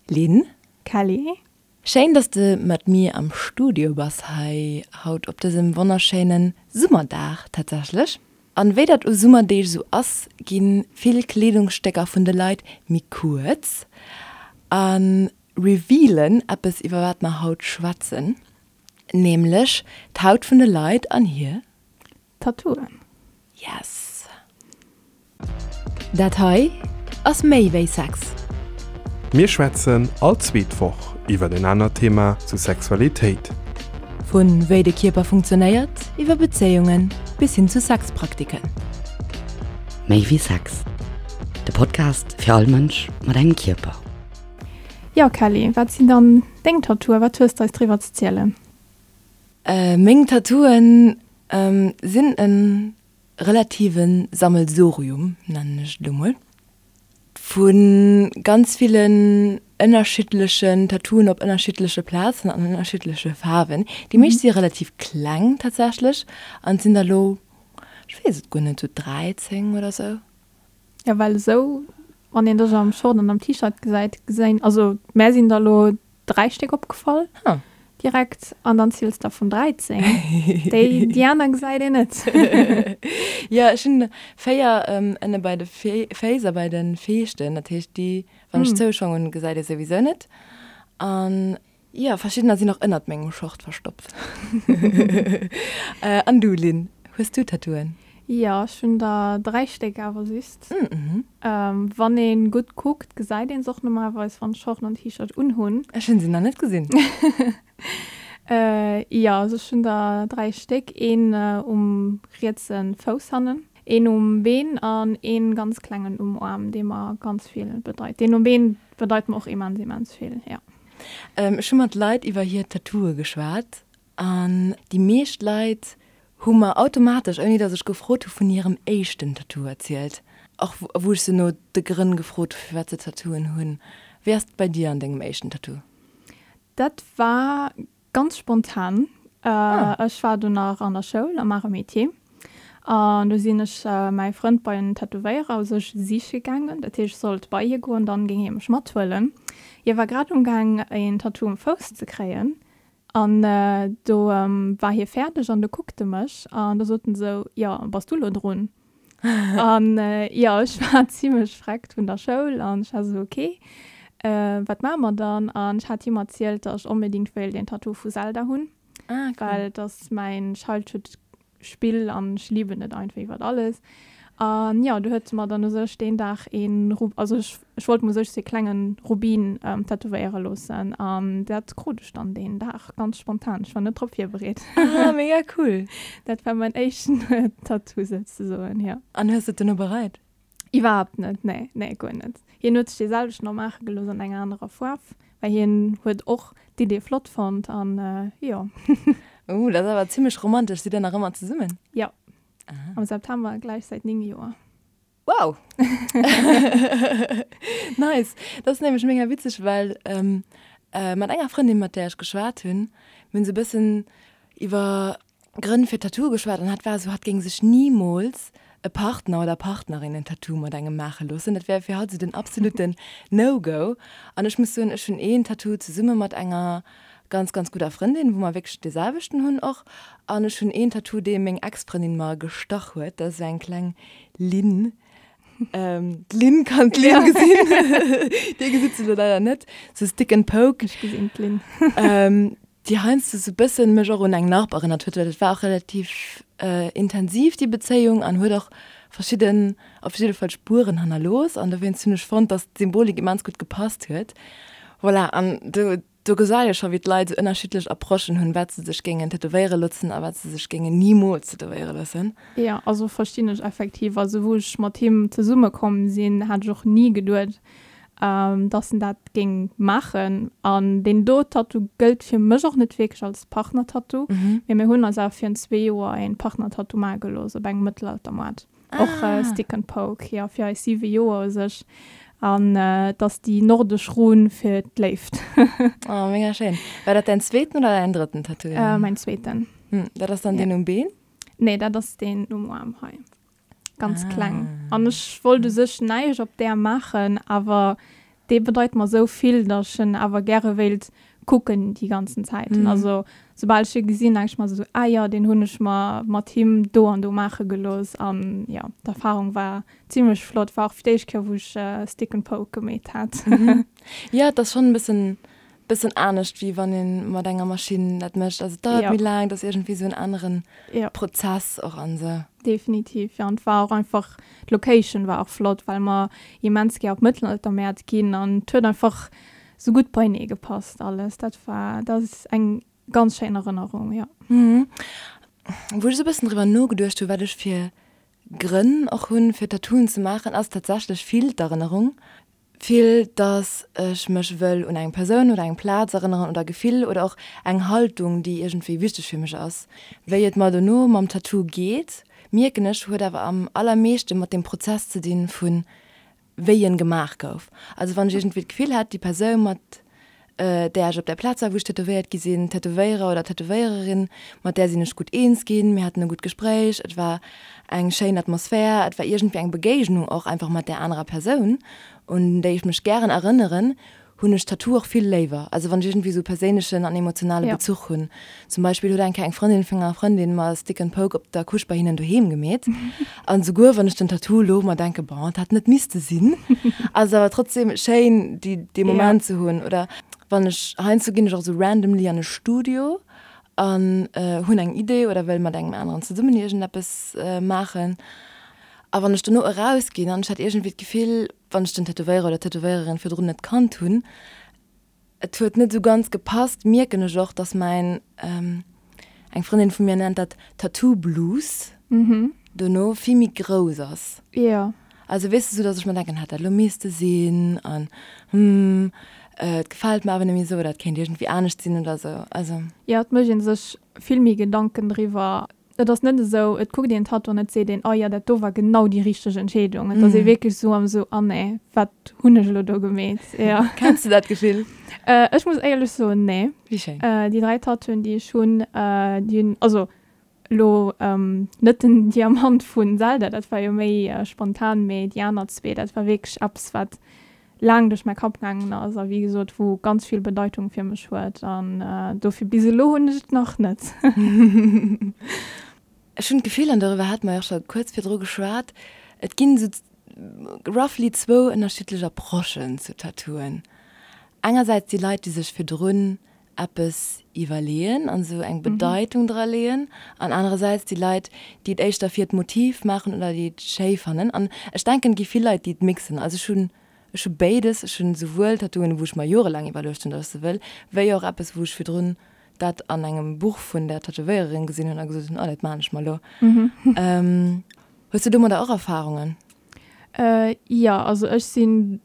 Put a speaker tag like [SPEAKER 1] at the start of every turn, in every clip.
[SPEAKER 1] Lynn.
[SPEAKER 2] Kelly.
[SPEAKER 1] Schéin dass de mat mir am Studio bass hei haut op dësem wonnerschéinen Summerdag tatsächlech. An wéi dat u Summerdeeg sou ass, ginn vill Kleedungsstécker vun de Leit méi kuerz a revealen eppes iwwer wat mer haut schwätzen, nämlech d'Haut vun de Leit an hir.
[SPEAKER 2] Tattooen.
[SPEAKER 1] Yes! Dat hei ass méi wéi Sex.
[SPEAKER 3] Mir schwätzen all zweet Woch iwwer en anert Thema zu Sexualitéit.
[SPEAKER 1] Vu wéi de Kierper funktionéiert, iwwer Bezéiungen bis hin zu Sexpraktiken.
[SPEAKER 4] Méi wéi Sex, de Podcast fir all Mënsch mat engem Kierper.
[SPEAKER 2] Jo Kelly, wat sinn dann deng Tattooen? Wat hues de eis driwwer ze zielen?
[SPEAKER 1] Meng Tattooen sinn e relative Sammelsurium, nennen ech et elo mol, vu ganz villen ënnerschiddlechen Tattooen op ënnerschiddleche Plazen an ënnerschiddleche Faarwen. Déi meescht si relativ kleng tatsächlech an et sinn der elo, ech weess et guer net, sou 13 oder sou.
[SPEAKER 2] Jo, well esou, wann een dech am Short an am T-Shirt gesäit, geséin, also mär sinn der elo 3 Stéck opgefall direkt an dann ziels der vun 13. Déi déi aner gesäit een net.
[SPEAKER 1] Jo, ech hunn 4 ënne bei de Féiss a bei de Feeschten, dat heescht déi wann ech Zouschong hunn, gesäit ee souwisou net. An jo, verschiddener sinn och ënnert mengem Short verstoppt. An du Lynn, hues du Tattooen?
[SPEAKER 2] Jo, ech hunn der 3 Stéck awer just. Wann een gutt kuckt, gesäit een se och normalerweis wann ech Short an T-Shirt unhunn.
[SPEAKER 1] Ech hunn se nach net gesinn.
[SPEAKER 2] Jo, also ech hunn der 3 Stéck, een um rietse Fouss hannen, een um Been an een ganz klengen um Aarm, dee mer ganz vill bedeit. Deen um Been bedeit mer och immens, immens vill, jo.
[SPEAKER 1] Ech hu mat Leit iwwer hir Tattooe geschwat An déi meescht Leit hu mer automatesch, ouni datt ech gefrot hu, vun hirem éischten Tattoo erzielt. Och wou ech se no de Grënn gefrot hu firwat se Tattooen hunn. Wéi ass et bei dir an dengem éischten Tattoo?
[SPEAKER 2] Dat war ganz spontan. Ech war do nach an der Schoul am Arts et Métiers an do sinn ech mäi Frënd bei en Tätowéierer u sech siche gaangen. Dat heescht, ech sollt bei hie goen, dann géing hie mech mathuelen. Hie war grad umgaang een Tattoo um Fouss ze kréien An do war hie fäerdeg an du kuckt e mech an du sot en esou, Jo, bass du lo drun? An jo, ech war zimlech vreckt vun der Schoul an ech war esou, Ok, wat maache mer dann? An ech hat him erzielt, datt ech onbedéngt wéilt een Tattoo vu Zelda hunn, well et ass mäin Childhood Spill an ech lieben et einfach iwwert alles. An jo, du huet se mer dann u sech deen Dag een Ru also ech ech wollt mer u sech sou ee klengen Rubin tätowéiere loossen an dat krut ech dann deen Dag ganz spontan. Ech war net drop virbereet.
[SPEAKER 1] Ah, mega cool!
[SPEAKER 2] Dat war mäin éischten Tattoo souzesoen, jo.
[SPEAKER 1] An hues de et duerno bereit?
[SPEAKER 2] Iwwerhaapt net, nee, nee, guer net. Hien huet sech dee selwechten och maache gelooss an enger anerer Faarf, well hien huet och d'Idee flott fonnt an jo.
[SPEAKER 1] Ooh, dat ass awer zimmlech romantesch. Sidd der nach ëmmer zesummen?
[SPEAKER 2] Jo, am September gläich säit 9 Joer.
[SPEAKER 1] Wow! Nice! Dat ass nämlech mega witzeg, well mat enger Frëndin, mat där ech geschwat hunn, mir hunn esou e bëssen iwwer Grënn fir Tattooe geschwat an hat war esou, hatt géing sech nimools e Partner oder Partnerin en Tattoo mat engem maache loossen. Dat wär fir hatt esou den absoluten No-Go. An ech muss soen, ech hunn een Tattoo zesumme mat enger ganz, ganz gudder Frëndin, wou mer wierklech dee selwechten hunn och. An ech hunn een Tattoo, dee meng Ex-Frëndin mer gestach huet. Dat ass esou eng kleng Linn. D'Linn kann d'Linn gesinn. Dir gesitt se elo leider net. Sou Stick and Poke.
[SPEAKER 2] Ech gesinn d'Linn.
[SPEAKER 1] Déi heiansdo sou bëssen mech och un eng Narb erënnert huet, well et war och relativ intensiv déi Bezéiung an huet och verschidden, op jidde Fall Spueren hannerlooss an dowéinst hunn ech fonnt, dass d'Symbolik immens gutt gepasst huet. Voilà, an do do gesäit ee scho wéi d'Leit sou ënnerschiddlech Approchen hunn, wat se sech géingen tätowéiere loossen a wat se sech géingen nimools tätowéiere loossen.
[SPEAKER 2] Jo, also verstinn ech effektiv. Also wou ech mat him zesumme komm sinn, hat ech och ni geduet, dass en dat géing maachen. An deen do Tattoo gëllt fir mech och net wierklech als Partner-Tattoo, mee mir hunn eis awer virun zwee Joer een Partner-Tattoo maache gelooss op engem Mëttelaltermoart. Och Stick and Poke, jo, fir eis siwe Joer u sech. An et ass déi nordesch Run fir d'Léift.
[SPEAKER 1] Oh, mega schéin. War dat däin zweeten oder däin drëtten Tattoo?
[SPEAKER 2] Mäin zweeten.
[SPEAKER 1] Dat ass dann deen um Been?
[SPEAKER 2] Nee, dat ass deen um Aarm hei. Ganz kleng. An ech wollt u sech näischt op där maachen, awer. Dee bedeit mer esou vill, datt ech en awer gäre wéilt kucken déi ganzen Zäiten. Also soubal ech e gesinn, denke ech mer esou, ah jo, deen hunn ech mer mat him do an do maache gelooss. An jo, d'Erfarung war zimmlech flott. War och fir d'éischt Kéier, wou ech Stick and Poke gemeet hat.
[SPEAKER 1] Jo, et ass schonn e bëssen bëssen anescht wéi wann ee mat enger Maschinn dat mécht. Also et dauert méi laang, et ass iergendwéi esou en anere Prozess och an esou.
[SPEAKER 2] Definitiv, jo. An et war och einfach, d'Location war och flott, well mer immens gär op Mëttelaltermäert ginn an et huet einfach sou gutt beienee gepasst alles. Dat war, dat ass eng ganz schéin Erënnerung, jo.
[SPEAKER 1] Wou ech esou e bëssen driwwer nogeduecht hu wat ech fir Grënn och hunn fir Tattooen ze maachen, ass tatsächlech vill d'Erënnerung. Vill, dass ech mech wëll un eng Persoun oder eng Plaz erënneren oder e Gefill oder och eng Haltung, déi iergendwéi wichteg fir mech ass. Wéi et mer dono mam Tattoo geet, mierken ech, huet awer am allermeeschte mat dem Prozess ze dinn, vu wéi en gemaach gouf. Also wann ech iergendwéi d'Gefill hätt, déi Persoun, mat där ech op där Plaz war, wou ech tätowéiert gi sinn, Tätowéierer oder Tätowéiererin, mat där sinn ech gutt eens ginn, mir haten e gutt Gespréich, et war eng schéin Atmosphär, et war iergendwéi eng Begéignung och einfach mat där anerer Persoun, un déi ech mech gären erënneren, hunn ech Tattoo och vill léiwer. Also wann ech iergendwéi esou perséinlechen an emotionale Bezuch hunn. Zum Beispill huet eng Kéier eng Frëndin vun enger Frëndin mer Stick and Poke op der Couche bei hinnen doheem gemeet. An souguer wann ech den Tattoo elo mer denke, bon, et hätt net misste sinn, ass et awer trotzdem schéin, déi, dee Moment ze hunn. Oder wann ech, heiansdo ginn ech och esou randomly an e Studio an hunn eng Idee oder wëll mat engem aneren zesummen iergendeppes maachen. A wann ech dono erausginn an ech hätt iergendwéi d'Gefill, wann ech den Tätowéierer oder d'Tätowéiererin virdrun net kannt hunn, Et huet net esou ganz gepasst, mierken ech och, dass mäin, eng Frëndin vu mir nennt dat Tattoo Blues, dono vill méi grouss ass.
[SPEAKER 2] Jo.
[SPEAKER 1] Also weess de, sou dass ech mer denken, hätt dat elo misste sinn an hm, et gefält mer awer net méi esou oder et kéint iergendwéi anescht sinn oder esou. Also.
[SPEAKER 2] Jo, et mécht ee sech vill méi Gedanken driwwer. Et ass net esou, et kuckt een d'Tattoo an et seet een, oh jo, dat do war genau déi richteg Entscheedung. Et ass ee wierklech esou am esou, ah nee, wat hunn ech elo do gemeet?
[SPEAKER 1] Jo. Kenns de dat Gefill?
[SPEAKER 2] Ech muss éierlech soen, nee.
[SPEAKER 1] Wéi schéin.
[SPEAKER 2] Déi 3 Tattooen, déi ech hunn, déi hunn, also elo net den Diamant vun Zelda, dat war jo méi spontan, mee déi aner zwee, dat war wierklech eppes, wat laang duerch mäi Kapp gaangen ass a wéi gesot wou ganz vill Bedeitung fir mech huet an dofir bis elo hunn ech et nach net.
[SPEAKER 1] Ech hunn d'Gefill, an doriwwer hate mer jo och scho kuerz virdru geschwat, et ginn esou roughly zwou ënnerschiddlech Approchen zu Tattooen. Engersäits déi Leit, déi sech virdrun eppes iwwerleeën an esou eng Bedeitung dra leeën an anerersäits déi Leit, déi et éischter fir d'Motiv maachen oder déi et schéi fannen. An ech denken, et gi vill Leit, déi et mixen. Also ech hunn, ech hu béides, ech hunn esouwuel Tattooen, wou ech mer jorelaang iwwerluecht hunn, datt ech se wëll, wéi och eppes, wou ech virdrun dat an engem Buch vun der Tätowéiererin gesinn hunn a gesot hunn, oh, dat maachen ech mer elo. Hues du domadder och Erfarungen?
[SPEAKER 2] Jo, also ech sinn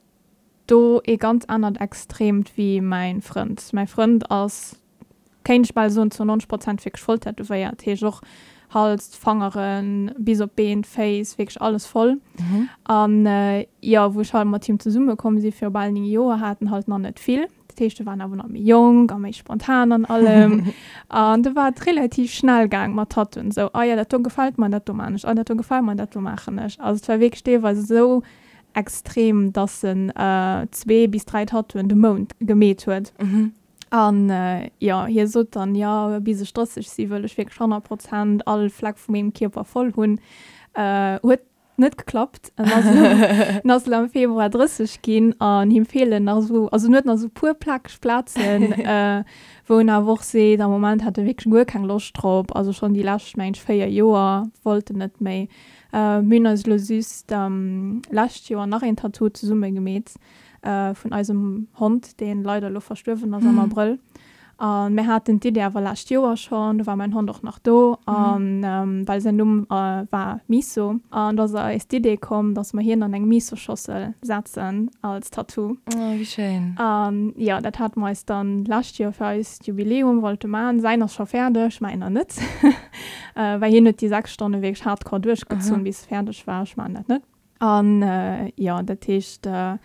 [SPEAKER 2] do ee ganz anert Extremt wéi mäin Frënd. Mäi Frënd ass, kéint ech bal soen, zu 90 Prozent wierklech voll tätowéiert, heescht och Hals, d'Fangeren, bis op d'Been, d'Féiss, wierklech alles voll. An jo, wou ech halt mat him zesumme komm si viru bal 9 Joer, hat en halt nach net vill. Dat heescht, e war awer nach méi jonk a méi spontan an allem. An do war et relativ schnell gaang mat Tattooen, esou, ah jo, dat do gefält mer, dat do maan ech, ah dat do gefält mer, dat do maachen ech. Also et war wierklech deelweis esou extrem, dass en zwee bis dräi Tattooen de Mount gemeet huet. An jo, hie sot dann, jo, bis ech 30 si wëll ech wierklech 100 Prozent all Fleck vu mengem Kierper voll hunn. Huet net geklappt. En ass elo, en ass elo am Februar 30 ginn an him feelen nach esou, also en huet nach esou puer plakeg Plazen, wou en awer och seet, am Moment hätt e wierklech guer keng Loscht drop. Also schonn déi lescht, mengen ech, 4 Joer wollt en net méi. Mir hunn eis elo just lescht Joer nach een Tattoo zesumme gemeet vun eisem Hond, deen leider elo verstuerwen ass am Abrëll. A mir haten d'Idee awer lescht Joer schonn, do war mäin Hond och nach do, an well säin Numm war Miso. An do ass eis d'Idee komm, dass mer hien an eng Miso-Schossel setzen als Tattoo.
[SPEAKER 1] Oh, wéi schéin.
[SPEAKER 2] An jo, dat hate mer eis dann lescht Joer fir eist Jubiläum wollte man. Säin ass scho fäerdeg, mäiner net. Well hien huet déi 6 Stonne wierklech hardcore duerchgezunn, bis e fäerdeg war. Ech maachen dat net. An jo, dat heescht, dat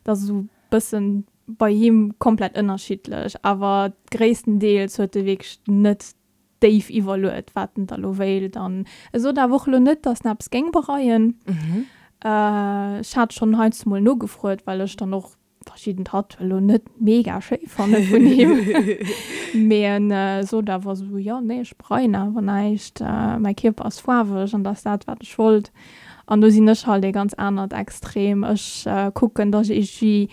[SPEAKER 2] ass esou e bëssen bei him komplett ënnerschiddlech, awer gréisstendeels huet e wierklech net déif iwwerluet, wat en da lo wéilt. An e sot awer och elo net, datt en eppes géing bereien. Ech hat schonn heiansdo mol nogefruet, well ech dann och. verschidden Tattooe lo net mega schéi fanne vun him, mee en sot awer esou, jo nee ech bereien awer näischt, mäi Kierper ass faarweg an dat ass dat wat ech wollt. An do sinn ech halt ee ganz anert Extrem, ech kucken datt ech iergendwéi,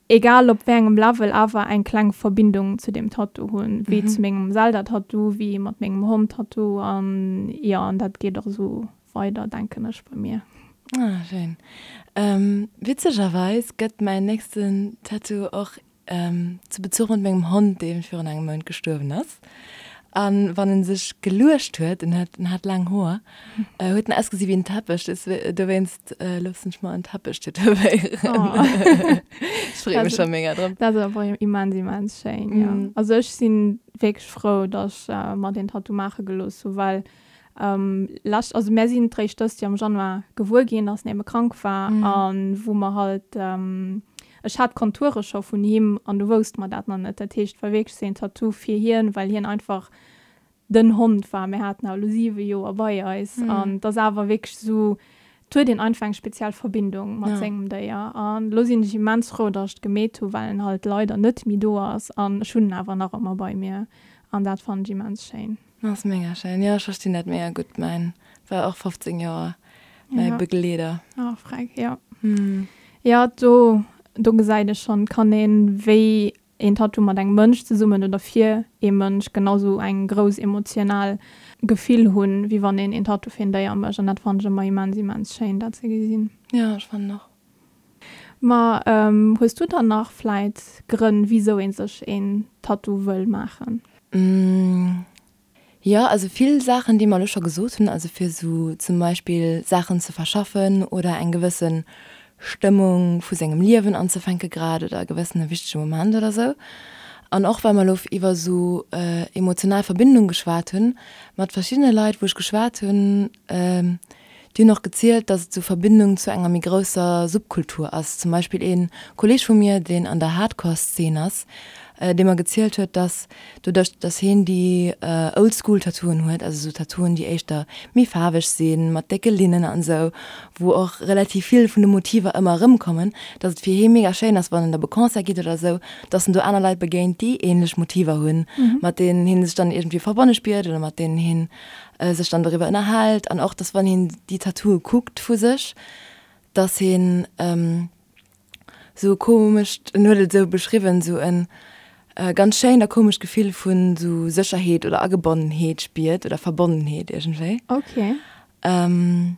[SPEAKER 2] egal op wéi engem Level, awer eng kleng Verbindung zu deem Tattoo hunn, wéi zu mengem Zelda-Tattoo, wéi mat mengem Hond-Tattoo an jo an dat geet och esou weider denken ech bei mir.
[SPEAKER 1] Ah schéin. Witzegerweis gëtt mäin nächsten Tattoo och zu Bezuch mat mengem Hond, dee virun engem Mount gestuerwen ass. An wann en sech geluecht huet, en huet en hat laang Hoer, huet en ausgesi wéi en Teppech, dowéinst loossen ech mer en Teppech tätowéieren. Ech freeë mech scho mega drop.
[SPEAKER 2] Dat ass awer immens immens schéin, jo. Also ech si wierklech frou, datt ech mer deen Tattoo maache gelooss hu, well Lescht, also mär sinn d'réischt dëst Joer am Januar gewuer ginn, dass en ebe krank war an wou mer halt, ech hat d'Konture scho vun him an du wousste mer dat nach net. Dat heescht, et war wierklech sou een Tattoo fir hien, well hien einfach den Hond war. Mir haten awer elo 7 Joer bei eis an et ass awer wierklech sou, et huet een einfach eng speziell Verbindung mat sengem Déier. An elo sinn ech immens frou, dass ech et gemeet hu, well en halt leider net méi do ass an ech hunn en awer nach ëmmer bei mir an dat fannen ech immens schéin.
[SPEAKER 1] Ass mega schéin, jo ech verstinn dat mega gutt, mäin war och 15 Joer mäi Begleeder.
[SPEAKER 2] Oh freck, jo. Jo do do gesäit ee schonn, kann een wéi een Tattoo mat engem Mënsch zesummen oder fir ee Mënsch genau sou eng grouss emotional Gefill hunn, wéi wann een een Tattoo fir een Déier mécht an dat fannen ech ëmmer immens immens schéin dat ze gesinn.
[SPEAKER 1] Jo ech fannen och.
[SPEAKER 2] Ma hues du dann nach vläit Grënn wisou ee sech een Tattoo wëll maachen?
[SPEAKER 1] Jo, also vill Saachen déi mer elo scho gesot hunn, also fir esou zum Beispill Saachen ze verschaffen oder eng gewësse Stëmmung vu sengem Liewen anzefänke grad oder e gewëssene wichtege Moment oder esou. An och well mer elo iwwer esou emotional Verbindung geschwat hunn, mat verschiddene Leit wou ech geschwat hunn, Déi hunn och gezielt, datt et sou Verbindung zu enger méi grousser Subkultur ass. Zum Beispill ee Kolleeg vu mir, deen an der Hardcore-Szene ass, dee mer gezielt huet, datt doduerch, datt heen déi Old-School-Tattooen huet, also sou Tattooen, déi éischter méi faarweg sinn, mat décke Linnen an esou, wou och relativ vill vun de Motiver ëmmer erëmkommen, datt et fir hee mega schéin ass, wann en op e Concert geet oder esou, datt en do aner Leit begéint, déi änlech Motiver hunn, mat deenen hee sech dann iergendwéi verbonne spiert oder mat deenen heen sech dann doriwwer ënnerhält an och, dass wann hien déi Tattooe kuckt vu sech, dass hien esou e komescht, en huet et esou beschriwwen, esou e ganz schéint a komescht Gefill vun esou Sécherheet oder Agebonnenheet spiert oder Verbonnenheet iergendwéi.
[SPEAKER 2] Okay.
[SPEAKER 1] An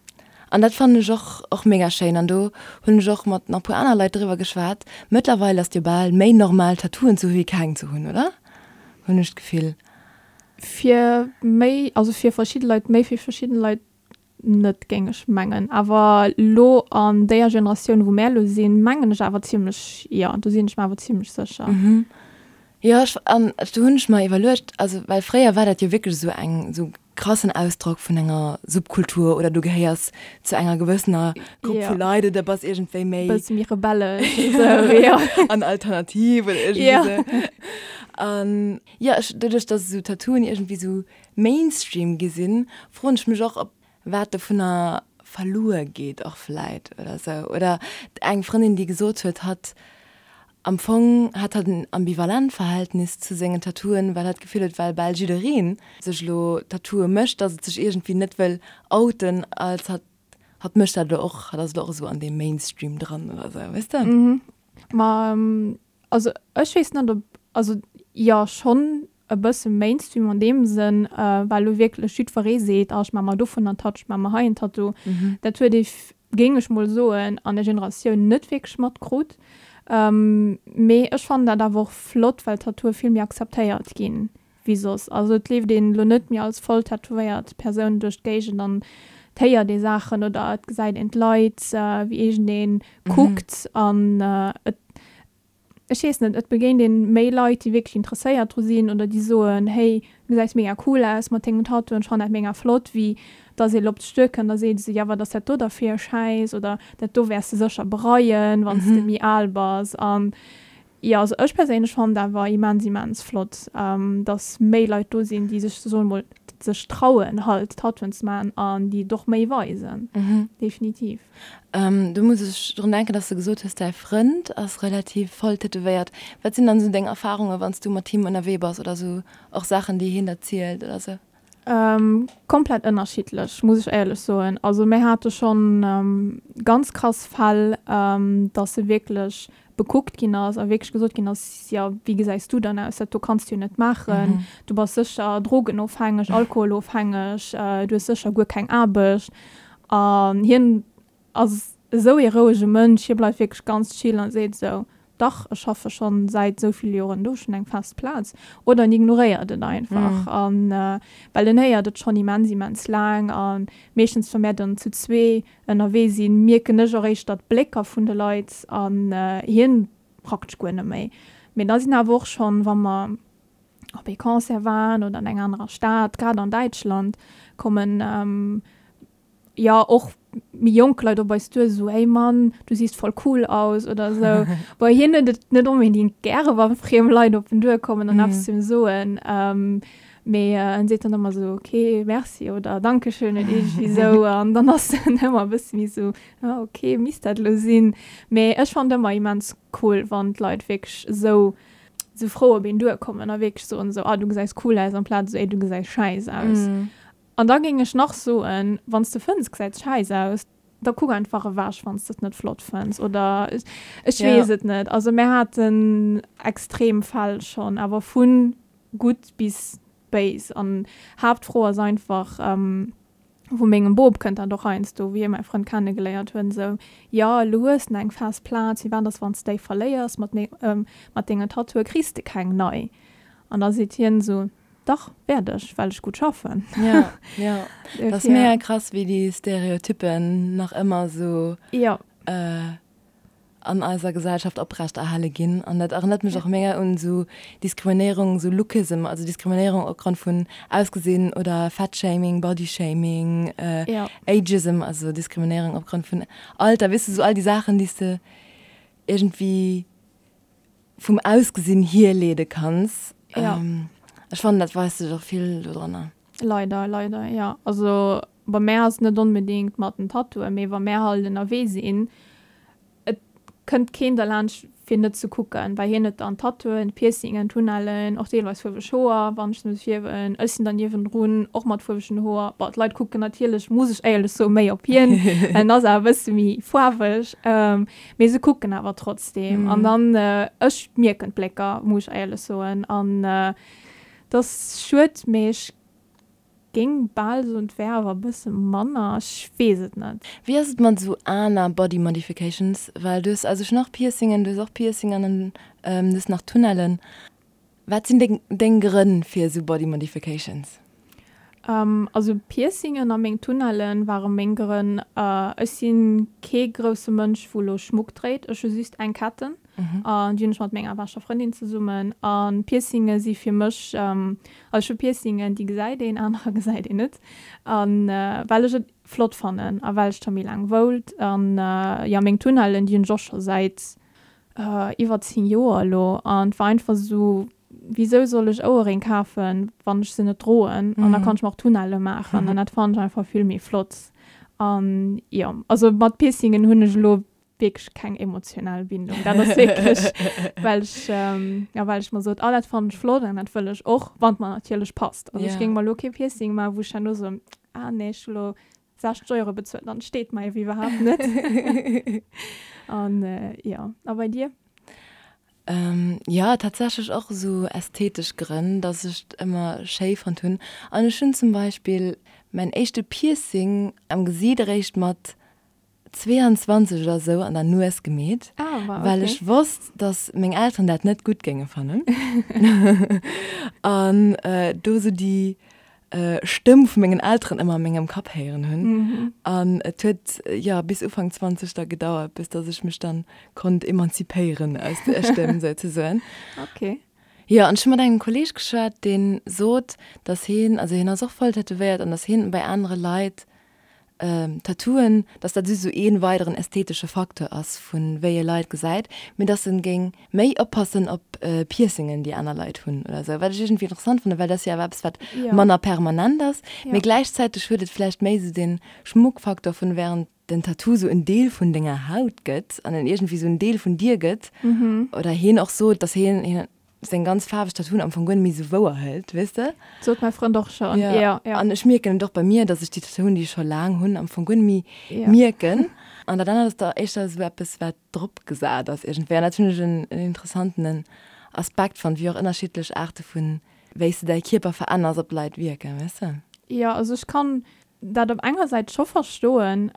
[SPEAKER 1] dat fannen ech och och mega schéin an do hunn ech och mat nach e puer aner Leit driwwer geschwat. Mëttlerweil ass et jo bal méi normal Tattooen ze hu wéi keng ze hunn, oder? Hunn ech d'Gefill.
[SPEAKER 2] Fir méi, also fir verschidde Leit méi, fir verschidden Leit net, géing ech mengen. Awer lo an déier Generatioun, wou mär lo sinn, mengen ech awer zimlech, jo, do sinn ech mer awer zimlech sécher.
[SPEAKER 1] Mhm. Jo, ech, an do hunn ech mer iwwerluecht, also well fréier war dat jo wierklech esou eng, esou krassen Ausdrock vun enger Subkultur oder du gehéiers zu enger gewëssener Grupp vu Leit oder bass iergendwéi méi.
[SPEAKER 2] Bësse méi rebellesch, esou, jo.
[SPEAKER 1] An alternativ oder iergendwéi esou. An Jo, ech, doduerch dass esou Tattooen iergendwéi esou Mainstream gi sinn, froen ech mech och, ob wat dovunner verluer geet och vläit oder esou. Oder eng Frëndin, déi gesot huet, hatt am Fong hätt hatt en ambivalent Verhältnis zu sengen Tattooen, well hatt d'Gefill huet, well bal jidderee sech elo Tattooe mécht, dass et sech iergendwéi net wëll outen als hatt, hatt mécht dat elo och, hatt ass elo och esou an deem Mainstream dran oder esou, weess de?
[SPEAKER 2] Ma Also ech weess net ob, also jo schonn e bësse Mainstream an deem Sënn, well elo wierklech jiddweree seet, ah ech maache mer dovun en Tattoo, ech maache mer hei en Tattoo. Dat huet ee, géing ech mol soen, an der Generatioun net wierklech matkrut. Mee ech fannen dat awer och flott, well Tattooe vill méi akzeptéiert ginn wéi soss. Also et leeft een elo net méi als voll tätowéiert Persoun duerch d'Géigend an et héiert ee Saachen oder et gesäit een d'Leit, wéi iergendee kuckt an et, ech weess net, et begéint een méi Leit, déi wierklech interesséiert dru sinn oder déi soen, hey, du gesäis mega cool aus mat dengem Tattoo an ech fannen dat mega flott, wéi dass ee lo op dech duerkënnt a seet esou, ja wat ass dat do da fir e Schäiss oder dat do wäers de sécher bereien, wann s de méi al bass an Jo, also ech perséinlech fannen et awer immens immens flott, dass méi Leit do sinn, déi sech, soe mol, sech trauen halt Tattooen ze maachen an déi et och méi weisen. Definitiv.
[SPEAKER 1] Do muss ech drun denken, dass de gesot hues, däi Frënd ass relativ voll tätowéiert. Wat sinn dann esou deng Erfarungen, wann s du mat him ënnerwee bass oder esou och Saachen, déi hien der zielt oder esou?
[SPEAKER 2] Komplett ënnerschiddlech, muss ech éierlech soen. Also mir hate schonn ganz krass Fäll, dass e wierklech bekuckt ginn ass a wierklech gesot ginn ass, jo wéi gesäis du dann aus, dat do kanns du jo net maachen, du bass sécher drogenofhängeg, alkoholofhängeg, du hues sécher guer keng Aarbecht. An hien ass esou ee rouege Mënsch, hie bleift wierklech ganz chill a seet esou, Dach, ech schaffe schonn säit esou ville Joren do, ech hunn eng fest Plaz. Oder en ignoréiert et einfach. An well en héiert et schonn immens, immens laang. A meeschtens, wa mär dann zu zwee ënnerwee sinn, mierken ech och éischter d'Blécker vun de Leit an hien praktesch guer net méi. Mee da sinn awer och schonn, wa mer op ee Concert waren oder an enger anerer Stad, grad an Däitschland, kommen jo och méi jonk Leit op eis duer esou, hey Mann, du siehst voll cool aus oder esou. Bon, hien huet et net onbedingt gäre wa friem Leit op en duerkommen an eppes zu him soen, mee en seet dann ëmmer esou, ok, merci oder dankeschön oder iergendwéi esou an dann ass en ëmmer e bësse méi esou, ah ok, misst dat elo sinn? Mee ech fannen et ëmmer immens cool, wann d'Leit wierklech esou esou frou op een duerkommen a wierklech soen esou, ah du gesäis cool aus amplaz esou, ey du gesäis schäiss aus. An da géing ech nach soen, wann s de fënns gesäit schäiss aus, da kuck einfach ewech wann s de et net flott fënns oder ech weess et net. Also mär haten extrem Fäll schonn, awer vu gutt bis béis. An Haaptfro ass einfach, vu mengem Bop kënnt dat och heiansdo, wéi hie mäi Frënd kenne geléiert huet, esou, jo elo hues de eng fest Plaz, firwat ass wann s de déi verléiers mat mat dengen Tattooe kriss de keng nei. An da seet hien esou, Dach, wäert ech, well ech gutt schaffen.
[SPEAKER 1] Ja, ja. Dat ass mega krass, wéi déi Stereotyppen nach ëmmer esou
[SPEAKER 2] ja.
[SPEAKER 1] äh, an eiser Gesellschaft oprecht erhale ginn. An dat erënnert mech och mega un esou Diskriminéierung, esou Lookism, also Diskriminéierung opgrond vun Ausgesinn oder Fatshaming, Bodyshaming, äh,
[SPEAKER 2] ja.
[SPEAKER 1] Ageism, also Diskriminéierung opgrond vun Alter, weess de, esou all déi Saachen, déi s de iergendwéi vum Ausgesinn hierleede kanns.
[SPEAKER 2] Ja.
[SPEAKER 1] Ech fannen, dat weist sech och vill dodranner.
[SPEAKER 2] Leider, leider, jo. Also bei mär ass et net onbedéngt mat den Tattooen, mee wa mär halt ënnerwee sinn, et kënnt keen derlaanscht fir net ze kucken, well hien huet dann Tattooen, Piercingen, Tunnellen, och deelweis fuerweg Hoer, wann ech se muss fierwen. Ech sinn dann niewendrun och mat fuerwegen Hoer. Bon, d'Leit kucken natierlech, muss ech éierlech soen, méi op hien, well en ass awer e bësse méi faarweg. Mee se kucken awer trotzdem. An dann, ech mierken d'Blécker, muss ech éierlech soen. An et ass schued, mee ech géing bal soen, et wär awer e bësse manner. Ech weess et net.
[SPEAKER 1] Wéi ass et mat esou aner Body Modifications? Well du hues, also ech hunn och Piercingen, du hues och Piercingen an du hues nach Tunnellen. Wat sinn deng deng Grënn fir esou Body Modifications?
[SPEAKER 2] Also Piercingen a meng Tunnellen ware meng Grënn. Ech si kee grousse Mënsch wou lo Schmuck dréit. Ech hu just eng Ketten an déi hunn ech mat menger beschter Frëndin zesummen. An Piercinge si fir mech, also ech hu Piercingen déi gesäit een, anerer gesäit een net. An well ech et flott fannen a well ech scho méi laang woult. An jo meng Tunnellen déi hunn ech och scho säit Iwwer 10 Joer elo an et war einfach esou, wisou soll ech Ouerréng kafen, wann ech se net droen an da kann ech mer och Tunnelle maachen an dat fannen ech einfach vill méi flott. An jo, also mat Piercingen hunn ech elo wierklech keng emotional Bindung, dat ass wierklech well ech, jo well ech mer sot, ah dat fannen ech flott an dat wëll ech och, wann et mer natierlech passt. Also ech géing mer elo kee Piercing maachen, wou ech herno soen, ah nee ech hu lo 60 Euro bezuelt, dann steet mer ewéi iwwerhaapt net. An jo, a bei dir?
[SPEAKER 1] Jo, tatsächlech och esou ästhetesch Grënn, dass ech et ëmmer schéi fonnt hunn. An ech hunn zum Beispill mäin éischte Piercing am Gesiit eréischt mat 22 oder esou an der Nues gemeet, well ech wosst, dass meng Elteren dat net gutt géinge fannen. An do esou déi Stëmm vu mengen Elteren ëmmer a mengem Kapp héieren hunn. An et huet, jo, bis Ufank 20 da gedauert, bis dass ech mech dann konnt emanzipéieren aus där Stëmm souzesoen.
[SPEAKER 2] Okay.
[SPEAKER 1] Jo, an ech hu mat engem Kolleeg geschwat, dee sot, dass hien, also hien ass och voll tätowéiert, an dass hien bei anere Leit. Tattooen, dass dat just esou ee weideren ästhetesche Facteur ass vu wéi ee Leit gesäit, mee dass en géing méi oppassen op Piercingen déi aner Leit hunn oder esou, wat ech iergendwéi interessant fannen, well dat ass jo awer eppes wat manner permanent ass, mee gläichzäiteg huet et vläicht méi esou dee Schmuckfaktor vun während den Tattoo esou en Deel vun denger Haut gëtt an en iergendwéi esou en Deel vun dir gëtt oder hien och sot, dass hien seng ganz faarweg Tattooen am Fong guer net méi sou wouer hëlt, weess de?
[SPEAKER 2] Sot mäi Frënd och schonn, jo, jo.
[SPEAKER 1] An ech mierken et och bei mir, dass ech déi Tattooen, déi ech scho laang hunn, am Fong guer net méi mierken. An dat anert ass da éischter esou eppes, wat drop gesat ass iergendwéi. An dat hunn ech en interessantenen Aspekt fonnt, wéi och ënnerschiddlech Aarte vun wéi s de däi Kierper veränners op d'Leit wierken, weess de?
[SPEAKER 2] Jo, also ech kann dat op enger Säit scho verstoen,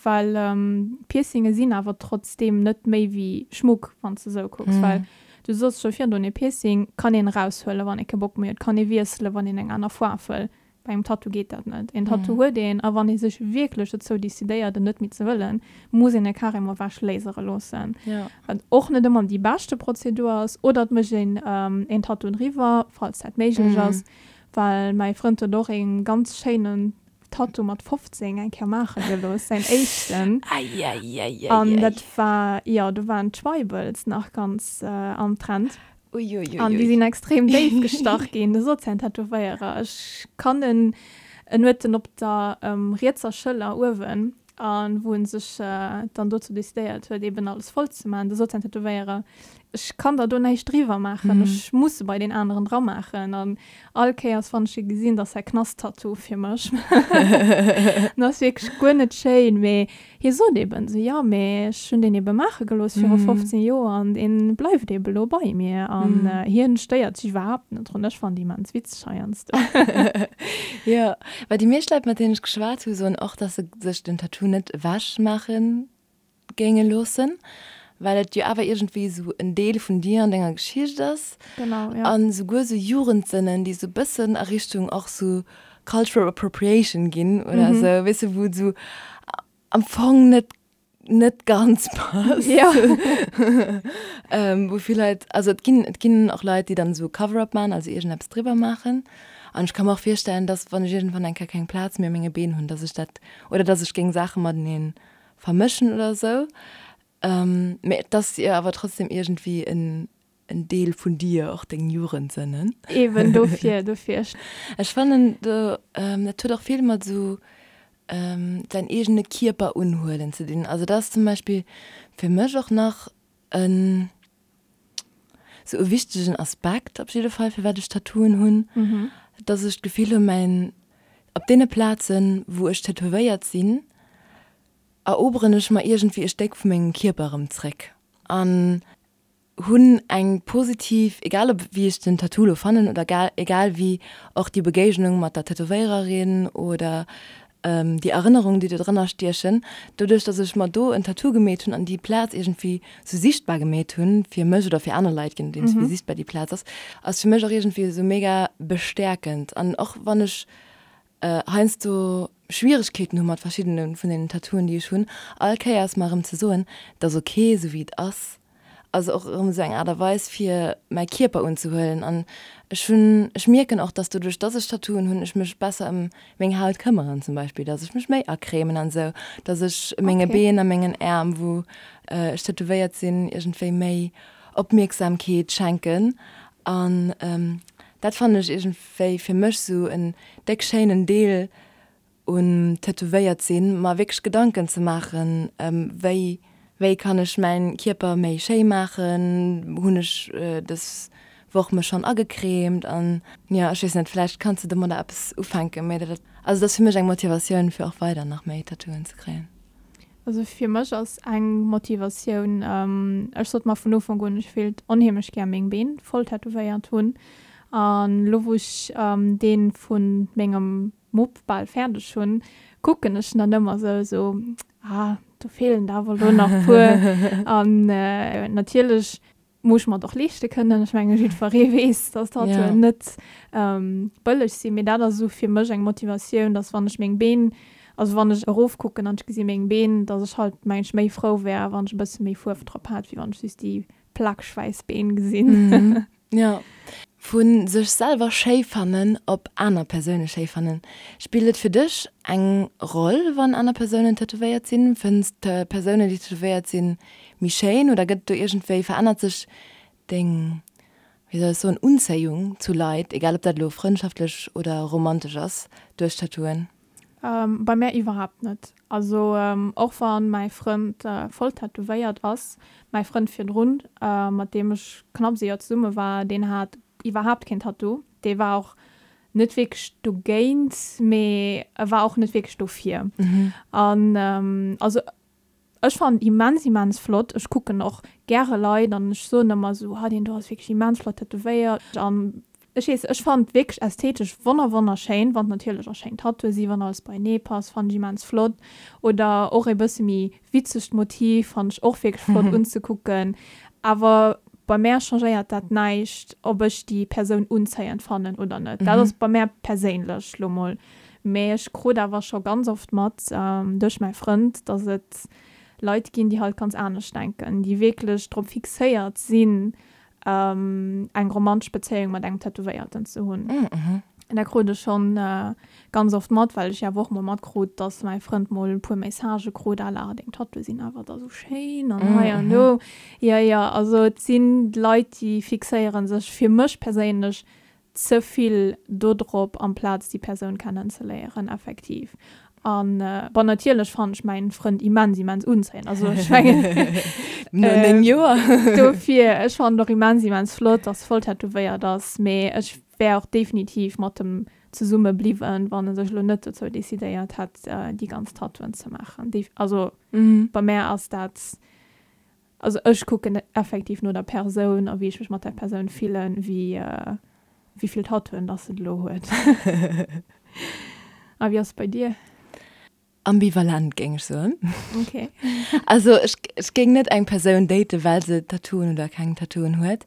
[SPEAKER 2] well Piercinge sinn awer trotzdeem net méi wéi Schmuck, wann s de esou kucks. Well du soss scho virdrun, ee Piercing kann een eraushuelen, wann ee kee Bock méi huet, kann ee wiesselen, wann een eng aner Foarf wëll. Bei engem Tattoo geet dat net. Een Tattoo huet een, a wann ee sech wierklech dozou decidéiert, en net méi ze wëllen, muss een e carrément ewech lasere loossen, wat och net ëmmer déi beschte Prozedur ass. Oder et mécht een een Tattoo driwwer, falls dat méiglech ass. Well mäi Frënd huet och een ganz schéinen Tattoo mat 15 eng Kéier maache gelooss, säin éischten.
[SPEAKER 1] Eieieiei.
[SPEAKER 2] An dat war, jo, do waren d'Tribals nach ganz am Trend.
[SPEAKER 1] Uiuiui.
[SPEAKER 2] An déi sinn extrem déif gestach ginn. Do sot säin Tätowéierer, ech kann en, en huet en op der rietser Schëller uewen, a wou en sech dann dozou decidéiert huet, eben alles voll ze maachen, do sot säin Tätowéierer, ech kann der do näischt driwwer maachen, ech muss se bei deen aneren dra maachen. An all Kéiers, wann ech e gesinn, dat ass säi Knasttattoo fir mech. En ass wierklech guer net schéin, mee hie sot eben esou, jo, mee ech hunn deen ebe maache gelooss viru 15 Joer an dee bleift ebe lo bei mir. An hien stéiert sech iwwerhaapt net drun. Ech fannen déi immens witzeg heiansdo.
[SPEAKER 1] Jo, well déi meescht Leit, mat deenen ech geschwat hu, soen och, dass se sech den Tattoo net ewech maache géinge loossen, well et jo awer iergendwéi esou en Deel vun dir an denger Geschicht ass.
[SPEAKER 2] Genau,
[SPEAKER 1] ja. An souguer esou Jugendsënnen, déi esou bëssen a Richtung och esou cultural appropriation ginn oder esou, weess de, wou et esou am Fong net, net ganz passt.
[SPEAKER 2] Ja.
[SPEAKER 1] Wou vill Leit, also et ginn, et ginn och Leit, déi dann esou Cover-up maachen, also iergendeppes driwwer maachen. An ech ka mer och virstellen, dass, wann ech iergendwann eng Kéier keng Plaz méi a menge Been hunn, dass ech dat, oder dass ech géing Saache matenee vermëschen oder sou. Mee et ass jo awer trotzdem iergendwéi en Deel vun dir, och deng Jugendsënnen.
[SPEAKER 2] Eben, dofir, dofir.
[SPEAKER 1] Ech fannen do, dat huet och vill mat esou säin eegene Kierper unhuelen ze dinn. Also dat ass zum Beispill fir mech och nach en sou e wichtegen Aspekt op jidde Fall, firwat ech Tattooen hunn, dass ech d'Gefill hunn, mäin, op deene Plazen, wou ech tätowéiert sinn, eroberen ech mer iergendwéi e Stéck vu mengem Kierper erëm zréck an hunn eng positiv, egal ob wéi ech den Tattoo lo fannen oder egal wéi och déi Begéignung mat der Tätowéiererin oder déi Erënnerungen déi do drënner stiechen, doduerch dass ech mer do en Tattoo gemeet hunn an déi Plaz iergendwéi sou sichtbar gemeet hunn fir mech oder fir aner Leit, je nodeems wéi sichtbar déi Plaz ass, ass fir mech och iergendwéi esou mega bestäerkend an och wann ech heiansdo Schwieregkeeten hu mat verschiddene vun deenen Tattooen, déi ech hunn, all Kéiers mer erëm ze soen, et ass ok esou wéi et ass, ass och erëm esou eng Aart a Weis fir mäi Kierper unzehuelen. An ech hunn, ech mierken och, dass doduerch dass ech Tattooen hunn, ech mech besser ëm meng Haut këmmeren zum Beispill, dass ech mech méi acremen an esou, dass ech menge Been a mengen Äerm, wou ech tätowéiert sinn, iergendwéi méi Opmierksamkeet schenken. An dat fannen ech iergendwéi fir mech esou en déck schéinen Deel un tätowéiert sinn, mer wierklech Gedanken ze maachen, wéi wéi kann ech mäin Kierper méi schéi maachen, hunn ech dës Woch mech schonn agecremt an jo ech weess net, vläicht kanns de domadder eppes ufänken, mee dat also dat ass fir mech eng Motivatioun fir och weider nach méi Tattooen ze kréien.
[SPEAKER 2] Also fir mech ass eng Motivatioun, ech sot mer vun Ufank un, ech wéilt onheemlech gär meng Been voll tätowéiert hunn an elo wou ech dee vu mengem Mupp bal fäerdeg hunn, kucken ech dann ëmmer sou, sou, ah, do feelen der awer elo nach puer. An natierlech muss ech mer et och leeschte kënnen. Ech menge jiddweree weess, dass Tattooen net bëlleg sinn. Mee dat ass esou fir mech eng Motivatioun, dass wann ech meng Been, also wann ech erofkucken an ech gesi meng Been, dass ech halt mengen ech méi frou wär, wann ech e bësse méi Fuerf drop hätt, wéi wann ech just déi plakeg wäiss Been gesinn.
[SPEAKER 1] Jo. Vu sech selwer schéi fannen op aner Persoune schéi fannen. Spillt et fir dech eng Roll, wann aner Persounen tätowéiert sinn? Fënns de Persounen, déi tätowéiert sinn, méi schéin oder gëtt do iergendwéi, verännert sech deng, wéi soll ech soen, Unzéiung zu Leit, egal ob dat elo frëndschaftlech oder romantesch ass, duerch Tattooen?
[SPEAKER 2] Bei mär iwwerhaapt net. Also och wann mäi Frënd voll tätowéiert ass, mäi Frënd virdrun, mat deem ech knapps ee Joer zesumme war, deen hat iwwerhaapt keen Tattoo. Dee war och net wierklech dogéint, mee e war och net wierklech dofir. An also Ech fannen immens immens flott. Ech kucken och gäre Leit an ech soen ëmmer esou, ha deen do ass wierklech immens flott tätowéiert an ech weess, ech fannen et wierklech ästhetesch wonner wonnerschéin, wann et natierlech och schéin Tattooe si, wann alles beienee passt, fannen ech immens flott oder och e bësse méi witzegt Motiv fannen ech och wierklech flott unzekucken. Awer bei mär changéiert dat näischt, ob ech déi Persoun unzéiend fannen oder net. Dat ass bei mär perséinlech lo mol Mee ech krut awer scho ganz oft mat, duerch mäi Frënd, dass et Leit ginn, déi halt ganz anescht denken, déi wierklech drop fixéiert sinn, eng romantesch Bezéiung mat engem Tätowéierten ze hunn. An dat krut ech schonn ganz oft mat, well ech jo awer och mol matkrut, dass mäi Frënd mol e puer Messagë krut à la, deng Tattooe sinn awer da sou schéin an hei an do. Jo, jo, also et sinn Leit, déi fixéiere sech, fir mech perséinlech, ze vill dodrop amplaz déi Persoun kennen ze léieren effektiv. An bon natierlech fannen ech mäin Frënd immens immens unzéiend, also ech mengen
[SPEAKER 1] No 9 Joer.
[SPEAKER 2] dofir ech fannen och immens immens flott dass voll tätowéiert ass, mee ech wär och definitiv mat em zesumme bliwwen wann e sech elo net dozou decidéiert hätt déi ganz Tattooen ze maachen. Also bei mär ass dat Also ech kucken effektiv no der Persoun a wéi ech mech mat där Persoun fillen, wéi wéi vill Tattooen dass se elo huet. A wéi ass et bei dir?
[SPEAKER 1] Ambivalent géing ech soen.
[SPEAKER 2] Ok.
[SPEAKER 1] Also ech ech géing net eng Persoun daten, well se Tattooen oder keng Tattooen huet.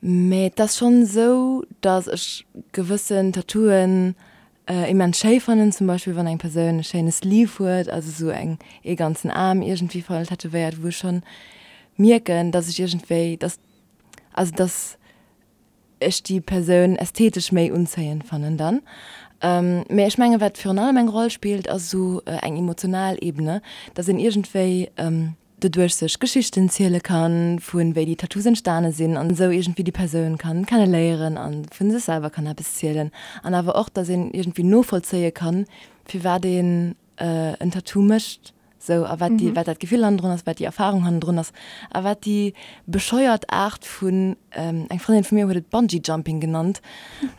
[SPEAKER 1] Mee et ass schonn esou, dass ech gewëssen Tattooen immens schéi fannen, zum Beispill wann eng Persoun e schéine Sleeve huet, also esou eng ee ganzen Aarm iergendwéi voll tätowéiert, wou ech schonn mierken, dass ech iergendwéi, dass, also dass ech déi Persoun ästhetesch méi unzéiend fannen dann. Mee ech mengen, wat virun allem eng Roll spillt, ass esou eng emotional Ebene, dass een iergendwéi, doduerch sech Geschichten ziele kann, vu wéi déi Tattoos entstane sinn an esou iergendwéi déi Persoun kann kenne léieren a vu sech selwer kann eppes zielen an awer och, datt een iergendwéi novollzéie kann, firwat een en Tattoo mécht sou a wat déi, wat dat Gefill hannendrun ass, wat déi Erfarung hannendrun ass a wat déi bescheuert Aart vun, eng Frëndin vu mir huet et Bungee Jumping genannt,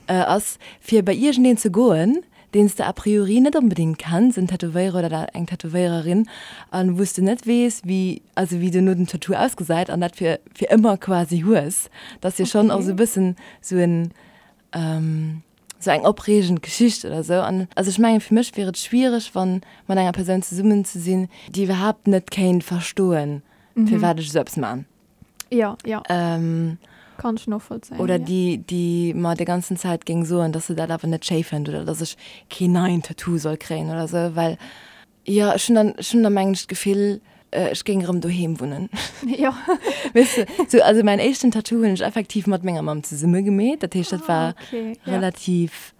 [SPEAKER 1] ass, fir bei iergendeen ze goen, deen s de a priori net onbedéngt kenns, en Tätowéierer oder eng Tätowéiererin, a wou s de net weess, wéi, also wéi duerno den Tattoo ausgesäit an dat fir fir ëmmer quasi hues. Dat ass jo schonn och esou e bëssen esou en, esou eng opreegend Geschicht oder esou. An also ech mengen, fir mech wier et schwiereg, wann mat enger Persoun zesummen ze sinn, déi iwwerhaapt net kéint verstoen, firwat ech esou eppes man.
[SPEAKER 2] Ja, ja. Ähm, Kann ech novollzéien.
[SPEAKER 1] Oder ja. déi, déi mer déi ganzen Zäit géing soen, dass se dat awer net schéi fënnt oder dass ech keen neien Tattoo soll kréien oder sou, well jo, ech hunn dann, ech hunn da mengen ech d'Gefill, ech géing erëm doheem wunnen.
[SPEAKER 2] Jo.
[SPEAKER 1] Weess de, sou, also mäin éischten Tattoo hunn ech effektiv mat menger Mamm zesumme gemeet, dat heescht, dat war ah, okay. ja. relativ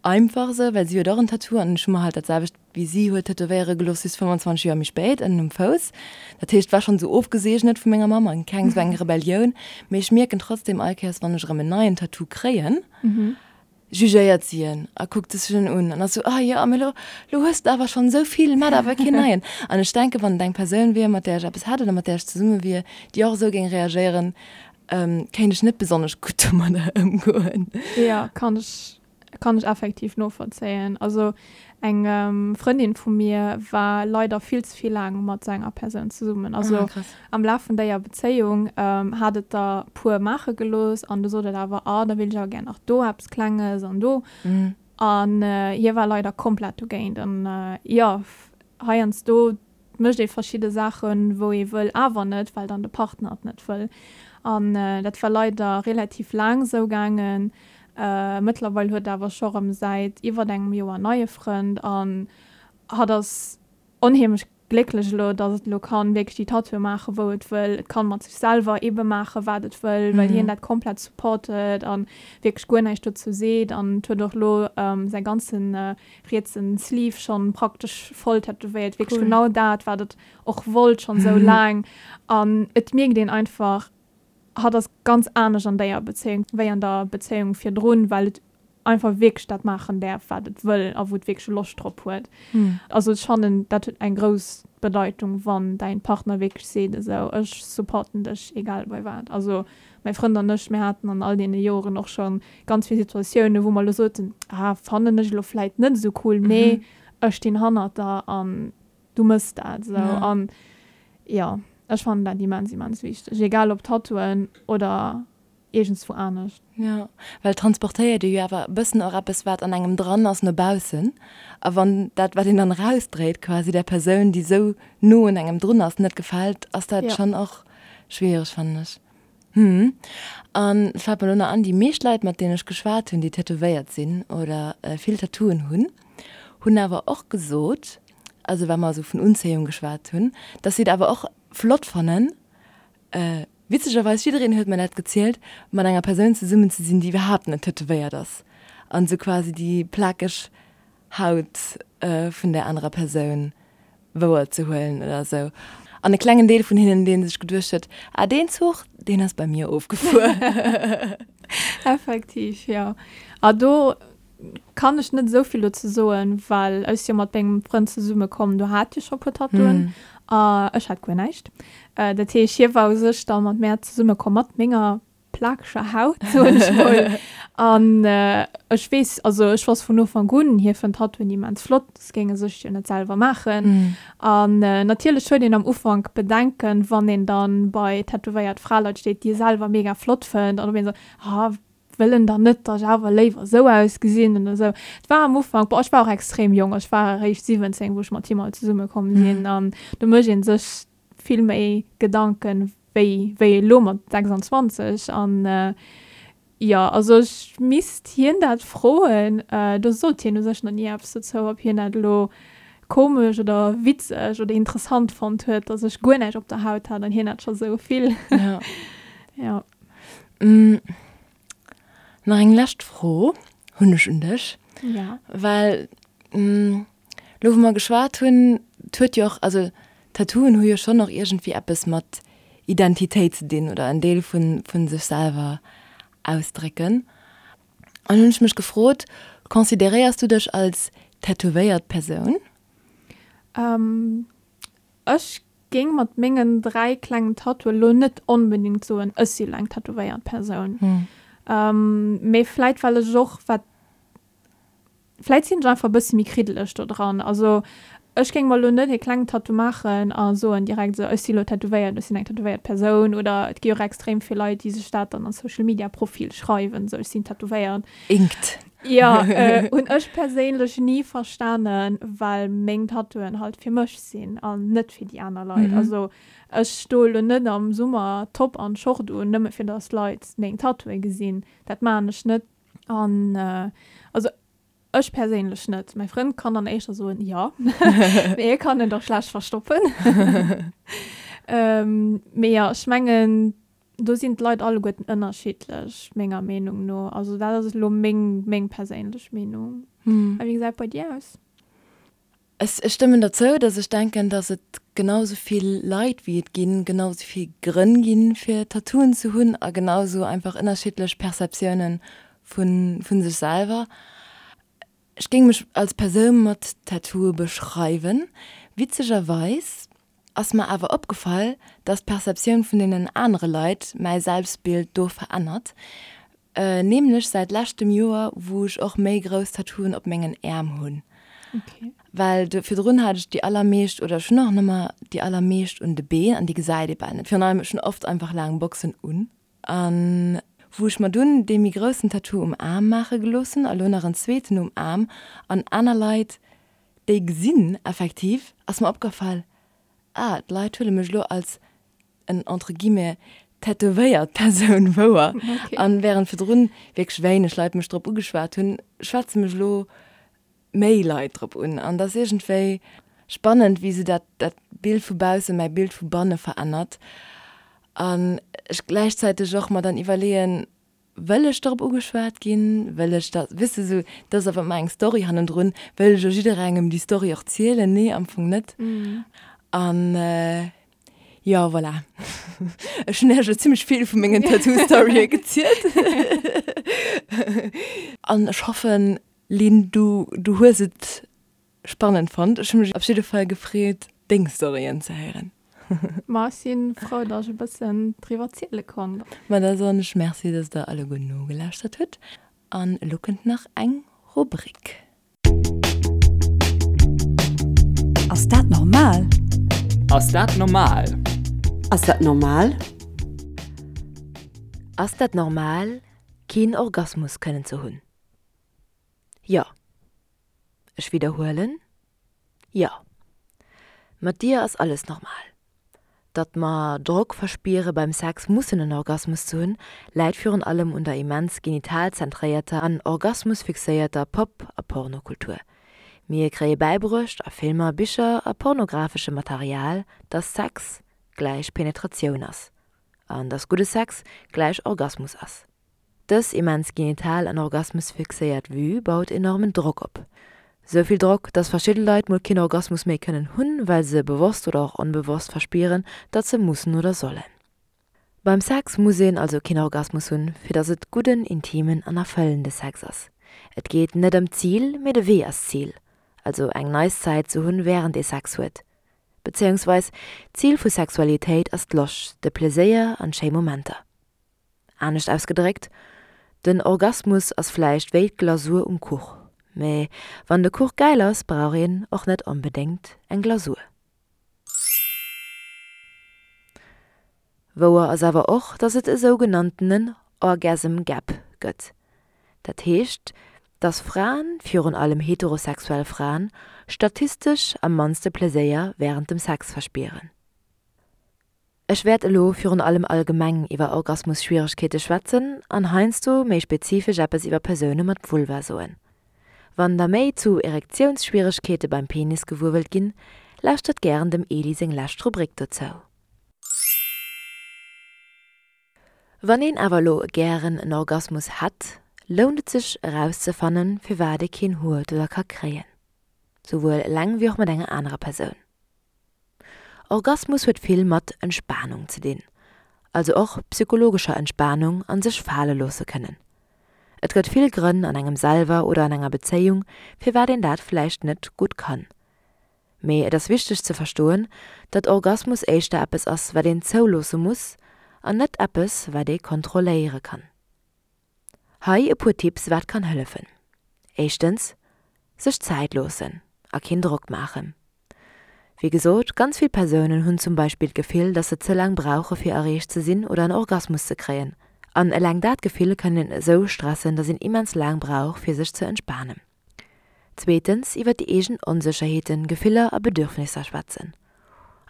[SPEAKER 1] einfach sou, well si huet och en Tattoo an ech hu mer halt dat selwecht wéi si huet tätowéiere gelooss, just 25 Joer méi spéit, ënnen um Fouss. Dat heescht, et war schonn esou ofgeseegnet vu menger Mamm an keng esou eng Rebellioun. Mee ech mierken trotzdem all Kéiers, wann ech erëm en neien Tattoo kréien, jugéiert si en a kuckt sech en un an ass esou, Ah jo, mee lo, lo hues de awer schonn esou vill, mat awer keen neien. An ech denken, wann et eng Persoun wier, mat där ech eppes hätt oder mat där ech zesumme wier, déi och esou géing reagéieren, kéint ech net besonnesch gutt domadder ëmgoen.
[SPEAKER 2] Jo, kann ech Kann ech effektiv novollzéien. Also eng Frëndin vu mir war leider vill ze vill laang mat sou enger Persoun zesummen. Also ah, krass. am Laf vun déier Bezéiung hat et der puer maache gelooss an du sot et awer, ah da wéilt ech awer gär nach do eppes Klenges an do. An hie war leider komplett dogéint. An jo, heiansdo mécht ee verschidde Saachen, wou ee wëll awer net, well dann de Partner et net wëll. An dat war leider relativ laang esou gaangen. Mëttlerweil huet awer scho rëm säit iwwert engem Joer en neie Frënd an hatt ass onheemlech. Glécklech elo, dass et elo kann wierklech déi Tattooe maachen, wou et wëll. Et kann mat sech selwer ebe maachen, wat et wëll, well hien dat komplett supportet an wierklech guer näischt dozou seet. An et huet och elo säi ganzen rietsen Sleeve schonn praktesch voll tätowéiert. Wierklech genau dat, wat et och wollt schonn esou laang. An et mierkt een einfach, hatt ass ganz anescht an déier Bezéiung wéi an der Bezéiung virdrun, well et einfach wierklech dat maachen däerf, wat et wëll a wou et wierklech Loscht drop huet. Also ech fannen, dat huet eng grouss Bedeitung, wann däin Partner wierklech seet, esou, ech supporten dech, egal bei wat. Also mäi Frënd an ech, mir haten an all deene Joren och scho ganz vill Situatiounen, wou mer elo soten, ah, fannen ech elo vläit net esou cool, mee ech stinn hannert der an du mëss dat esou. An jo, ech fannen dat immens, immens wichteg, egal ob Tattooen oder iergendswou anescht.
[SPEAKER 1] Jo, well et transportéiert ee jo awer e bëssen och eppes, wat an engem dran ass, no baussen. A wann dat, wat een dann erausdréit, quasi där Persoun, déi esou no un engem drun ass, net gefält, ass dat schonn och schwiereg, fannen ech. Hm. An et fält mer elo nach an, déi meescht Leit, mat deenen ech geschwat hunn, déi tätowéiert sinn oder vill Tattooen hunn, hunn awer och gesot, also wa mer esou vun Unzéiung geschwat hunn, dass si et awer och flott fannen, Witzegerweis, jiddereen huet mer dat gezielt, mat enger Persoun zesummen ze sinn, déi iwwerhaapt net tätowéiert ass an esou quasi déi plakeg Haut vun där anerer Persoun wouer ze huelen oder esou. An e klengen Deel vun hinnen, dee sech geduecht huet, Ah, deen Zuch, deen ass bei mir ofgefuer.
[SPEAKER 2] Effektiv, jo. A do Kann ech net esou vill dozou soen, well ech si jo mat mengem Frënd zesumme komm, do hat hie scho puer Tattooen a ech hat guer näischt. Dat heesch, hie war u sech da mat mär zesumme komm mat menger plakeger Haut, soen ech mol. An ech weess, also ech wosst vun Ufank un, hie fënnt Tattooen immens flott, soss géing e sech jo net selwer maachen. An natierlech huet een am Ufank Bedenken, wann een dann bei tätowéiert Fraleit steet, déi e selwer mega flott fënnt an op een esou, ah, wëll en dann net, dass ech awer léiwer esou ausgesinn oder esou. Et war am Ufank, bon, ech war och extrem jonk, ech war eréischt 17, wou ech mat him all zesumme komm sinn an do mécht ee sech vill méi Gedanken wéi wéi elo mat 26 an jo, also ech misst hien dat froen, do sot hien u sech nach ni eppes dozou, ob hien dat elo komesch oder witzeg oder interessant fonnt huet, dass ech guer näischt op der Haut hat an hien hat scho sou vill.
[SPEAKER 1] Jo. Nach eng lescht Fro hunn ech un dech.
[SPEAKER 2] Ja.
[SPEAKER 1] Well elo wou mer geschwat hunn, et huet jo och, also Tattooen hu jo schonn och iergendwéi eppes mat Identitéit ze dinn oder en Deel vu sech selwer ausdrécken. An hunn ech mech gefrot, consideréiers du dech als tätowéiert Persoun?
[SPEAKER 2] Ech géing mat mengen 3 klengen Tattooe lo net onbedingt soen, ech si lo eng tätowéiert Persoun. Mee vläit well ech och wat, vläit sinn ech einfach e bësse méi kriddeleg do dran. Also ech géing mer lo net e klengen Tattoo maachen a soen direkt esou, ech si lo tätowéiert, ech sinn eng tätowéiert Persoun. Oder et gi och extrem vill Leit, déi sech dat dann an Social Media Profil schreiwen, esou ech sinn tätowéiert.
[SPEAKER 1] Inkt.
[SPEAKER 2] Jo, hunn ech perséinlech ni verstanen, well meng Tattooen halt fir mech sinn an net fir déi aner Leit. Also ech stoe lo net am Summer Top an Short un, nëmme fir dass d'Leit meng Tattooe gesinn. Dat maachen ech net. An also ech perséinlech net. Mäi Frënd kann dann éischter soen, jo, mee hie kann et och schlecht verstoppen. Mee jo, ech mengen, Do sinn d'Leit alleguerten ënnerschiddlech, menger Meenung no. Also dat ass elo meng, meng perséinlech Meenung. A wéi gesäit et bei dir aus?
[SPEAKER 1] Ech stëmmen der zou, datt ech denken, datt et genau sou vill Leit wéi et ginn, genau sou vill Grënn ginn, fir Tattooen ze hunn a genau sou einfach ënnerschiddlech Perceptiounen vu sech selwer. Ech géing mech als Persoun mat Tattooe beschreiwen. Witzegerweis ass mer awer opgefall, dass d'Perceptioun vun deenen anere Leit mäi Selbstbild do verännert. Nämlech säit leschtem Joer, wou ech och méi grouss Tattooen op mengen Äerm hunn. Well do virdrun hat ech déi allermeescht, oder ech hunn och nëmmer déi allermeescht un de Been an déi gesäit ee bal net. Virun allem, ech hunn oft einfach laang Boxen un. An wou ech mer dunn dee méi groussen Tattoo um Aarm maache gelooss hunn a lo nach en zweeten um Aarm an aner Leit déi gesinn effektiv, ass mer opgefall, ah d'Leit huele mech elo als en entre guillemets tätowéiert Persoun wouer. An während virdrun wierklech wéineg Leit mech drop ugeschwat hunn, schwätze mech elo méi Leit drop un. An dat ass iergendwéi, spannend, wéi sou dat, dat Bild vu bausse mäi Bild vu banne verännert. An ech gläichzäiteg och mer dann iwwerleeën, Wëll ech dorop ugeschwat ginn? Wëll ech dat, weess de, sou, dat ass awer ëmmer eng Story hannendrun. Wëll ech elo jidderengem déi Story och zielen? Nee, am Fong net. An jo, voilà. Ech hunn Iech elo zimmlech vill vu mengen Tattoo-Storye gezielt. An ech hoffen, Lynn, du, du hues et Spannend fonnt. Ech hu mech op jidde Fall gefreet deng Storyen ze héieren.
[SPEAKER 2] Ma ech si frou, dass ech e bëssen driwwer ziele konnt.
[SPEAKER 1] Ma da soen ech Merci, dass der alleguer nogelauschtert hutt. An elo kënnt nach eng Rubrik.
[SPEAKER 5] Ass dat normal?
[SPEAKER 6] Ass dat normal?
[SPEAKER 4] Ass dat normal?
[SPEAKER 1] Ass dat normal, keen Orgasmus kënnen ze hunn? Jo. Ech widderhuelen, Jo. Mat dir ass alles normal. Datt mer Drock verspiere beim Sex mussen en Orgasmus ze hunn, läit virun allem un der immens genitalzentréierter an orgasmusfixéierter Pop a Pornokultur. Mir kréie bäibruecht a Filmer, Bicher a pornografeschem Material, datt Sex gläich Penetratioun ass an datt gudde Sex gläich Orgasmus ass. Dës immens genital an orgasmusfixéiert Vue baut enormen Drock op. Sou vill Drock, dass verschidde Leit mol keen Orgasmus méi kënnen hunn, well se bewosst oder och onbewosst verspieren, datt se mussen oder sollen. Beim Sex muss een also keen Orgasmus hunn, fir datt et gudden, intimen an erfëllende Sex ass. Et geet net ëm d'Zil, mee de Wee ass d'Zil, also eng nice Zäit ze hunn wärend ee Sex huet. Bezéiungsweis, d'Zil vu Sexualitéit ass d'Loscht, de Pleséier an schéi Momenter. Anescht ausgedréckt, Den Orgasmus ass vläicht wéi d'Glasur um Kuch, mä wann de Kuch gäil ass, brauch een och net onbedéngt eng Glasur. Wouer ass awer och, dass et e sougenanntenen Orgasm Gap gëtt. Dat heescht, dass Fraen, virun allem heterosexuell Fraen, statistesch am mannste Pleséier wärend dem Sex verspieren. Ech wäert elo virun allem allgemeng iwwer Orgasmusschwieregkeete schwätzen an heiansdo méi spezifesch eppes iwwer Persoune mat Vulva soen. Wann der méi zu Erektiounsschwieregkeete beim Penis gewuer wëllt ginn, lauschtert gären dem Eli seng lescht Rubrik dozou. Wann een awer elo gären en Orgasmus hätt, lount et sech erauszefannen, firwat ee keen huet oder ka kréien. Souwuel eleng wéi och mat enger anerer Persoun. Orgasmus huet vill mat Entspanung ze dinn, also och psychologescher Entspanung an sech fale loosse kënnen. Et gëtt vill Grënn an engem selwer oder an enger Bezéiung, firwat een dat vläicht net gutt kann. Mee et ass wichteg ze verstoen, datt Orgasmus éischter eppes ass, wat een zouloosse muss an net eppes, wat ee kontrolléiere kann. Hei e puer Tipps wat kann hëllefen. Éischtens, sech Zäit loossen a keen Drock maachen. Wéi gesot, ganz vill Persounen hunn zum Beispill d'Gefill, dass se ze laang brauche fir erreecht ze sinn oder en Orgasmus ze kréien. An eleng dat Gefill kann een esou stressen, dass een immens laang brauch fir sech ze entspanen. Zweetens, iwwer déi eegen Onsécherheeten, Gefiller a Bedürfnisser schwätzen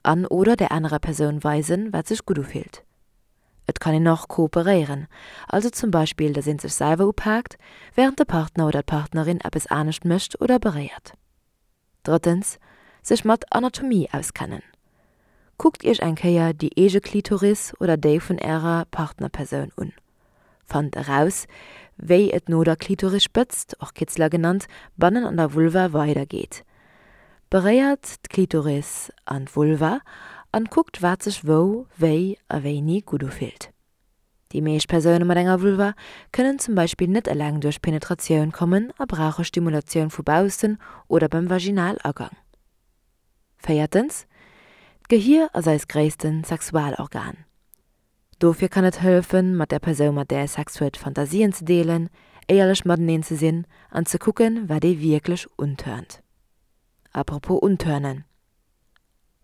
[SPEAKER 1] an oder der anerer Persoun weisen, wat sech gutt ufillt. Et kann een och kooperéieren, also zum Beispill, datt een sech selwer upaakt, wärend de Partner oder d'Partnerin eppes anescht mécht oder beréiert. Drëttens, sech mat Anatomie auskennen. Kuckt iech eng Kéier déi eege Klitoris oder déi vun ärer Partnerpersoun un. Fannt eraus, wéi et no der Klitorisspëtzt, och Kitzler genannt, bannen an der Vulva weider geet. Beréiert d'Klitoris an d'Vulva an kuckt wat sech wou, wéi a wéini gutt ufillt. Déi meescht Persoune mat enger Vulva kënnen zum Beispill net eleng duerch Penetratioun kommen a brauche Stimulatioun vu baussen oder beim Vaginalagang. Véiertens, D'Gehier ass eist gréissten Sexualorgan. Dofir kann et hëllefen, mat der Persoun, mat där ee Sex huet, Fantasien ze deelen, éierlech mateneen ze sinn an ze kucken, wat ee wierklech untörnt. Apropos untörnen,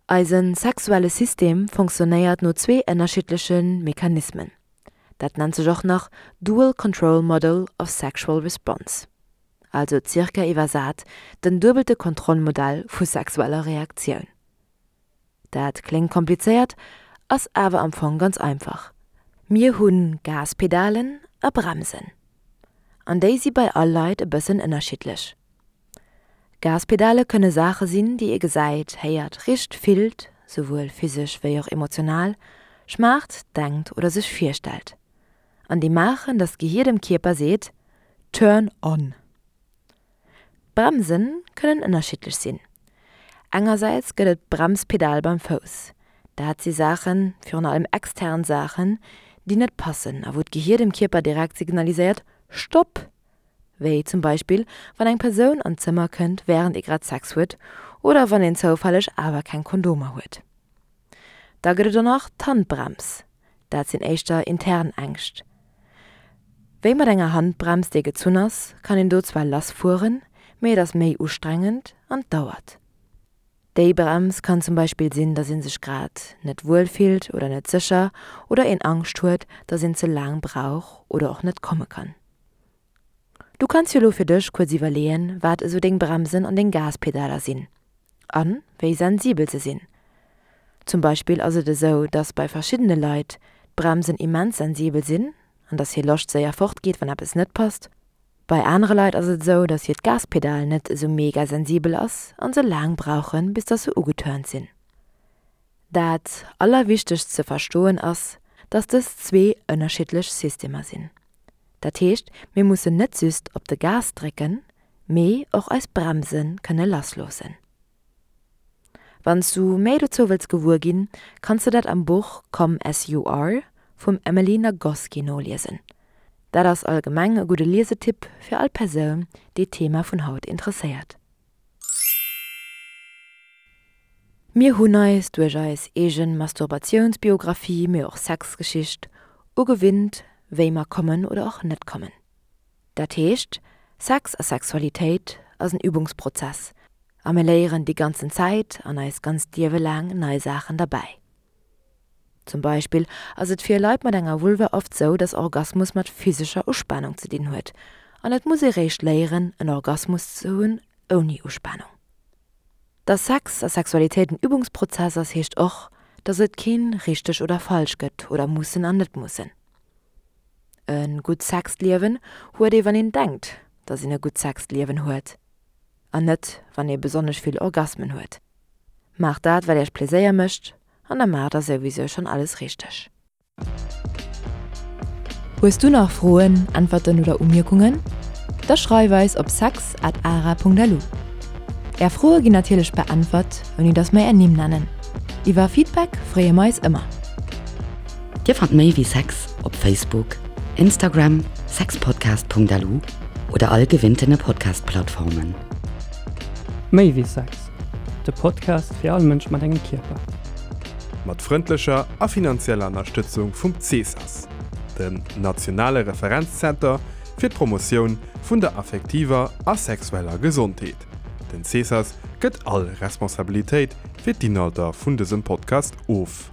[SPEAKER 1] Eise sexuelle System fonctionnéiert no zwee ënnerschiddleche Mechanismen. Dat nennt sech och nach Dual Control Model of Sexual Response, also zirka iwwersat den duebelte Kontrollmodell vu sexueller Reaktioun. Dat kléngt komplizéiert, ass awer am Fong ganz einfach, Mir hu Gaspedalen a Bremsen. An déi si bei all Leit e bëssen ënnerschiddlech. Gaspedale kënne Saache sinn, déi ee gesäit, héiert, richt, fillt, souwuel physesch wéi och emotional, schmaacht, denkt oder sech virstellt. An déi maachen, datt d'Gehier dem Kierper seet, Turn on! Bremse kënnen ënnerschiddlech sinn. Engersäits gëtt et d'Bremspedal beim Fouss. Dat si Saachen, virun allem extern Saachen, déi net passen a wou d'Gehier dem Kierper direkt signaliséiert, Stopp! Wéi zum Beispill wann eng Persoun an d'Zëmmer kënnt wärend ee grad Sex huet oder wann een zoufälleg awer keng Kondomer huet. Da gëtt et och nach d'Handbrems, dat sinn éischter intern Ängscht. Wéi mat enger Handbrems déi gezunn ass, kann een do zwar lass fueren, mee et ass méi ustrengend an dauert. Déi Brems kann zum Beispill sinn, dass een sech grad net wuel fillt oder net sécher oder een Angscht huet, dass een ze laang brauch oder och net komme kann. Du kanns jo lo fir dech kuerz iwwerleeën, wat esou deng Bremsen an deng Gaspedaler sinn a wéi sensibel se sinn. Zum Beispill ass et esou, dass bei verschiddene Leit d'Bremsen immens sensibel sinn an dass hir Loscht séier fortgeet, wann eppes net passt. Bei anere Leit ass et esou, dass hiert Gaspedal net esou mega sensibel ass an se laang brauchen, bis dass se ugeturnt sinn. Dat allerwichtegst ze verstoen ass, dass dës zwee ënnerschiddlech Systemer sinn. Dat heescht, mir mussen net just op de Gas drécken, mee och eis Bremse kënne lassloossen. Wann s du méi dozou wëlls gewuer ginn, kanns de dat am Buch Come As You Are vum Emily Nagoski noliesen. Dat ass allgemeng e gudde Liesetipp fir all Persoun, déi d'Thema vun haut interesséiert. Mir hunn eis duerch eis eegen Masturbatiounsbiographie, mee och Sexgeschicht, ugewinnt, wéi mer kommen oder och net kommen. Dat heescht, Sex a Sexualitéit ass en Übungsprozess a mir léieren déi ganzen Zäit an eist ganzt Liewe laang nei Saachen derbäi. Zum Beispill ass et fir Leit mat enger Vulva oft sou, dass Orgasmus mat physescher Uspanung ze dinn huet an et muss ee réischt léieren en Orgasmus ze hunn ouni Uspanung. Dass Sex a Sexualitéit en Übungsprozess ass heescht och, dass et keen richteg oder falsch gëtt oder mussen an net mussen. E gutt Sexliewen huet ee wann een denkt, dass een e gutt Sexliewen huet an net wann ee besonnesch vill Orgasmen huet. Maacht dat wat iech Pleséier mécht an da maacht der souwisou schonn alles richteg. Hues du nach Froen, Äntwerten oder Umierkungen? Da schreif eis op sex at ara.lu. Är Froe ginn natierlech beäntwert, ouni dass mer är Nimm nennen. Iwwer Feedback freeë mer eis ëmmer.
[SPEAKER 4] Dir fannt méi wéi Sex op Facebook, Instagram, sexpodcast.lu oder all gewinntene Podcast-Plattformen.
[SPEAKER 6] Méi wéi Sex, de Podcast fir all Mënsch mat engem Kierper.
[SPEAKER 3] Mat frëndlecher a finanzieller Ënnerstëtzung vum CESAS, dem nationale Referenzzenter fir d'Promotioun vun der affektiver a sexueller Gesondheet. Den CESAS gëtt all Responsabilitéit fir d'Inhalter vun dësem Podcast of.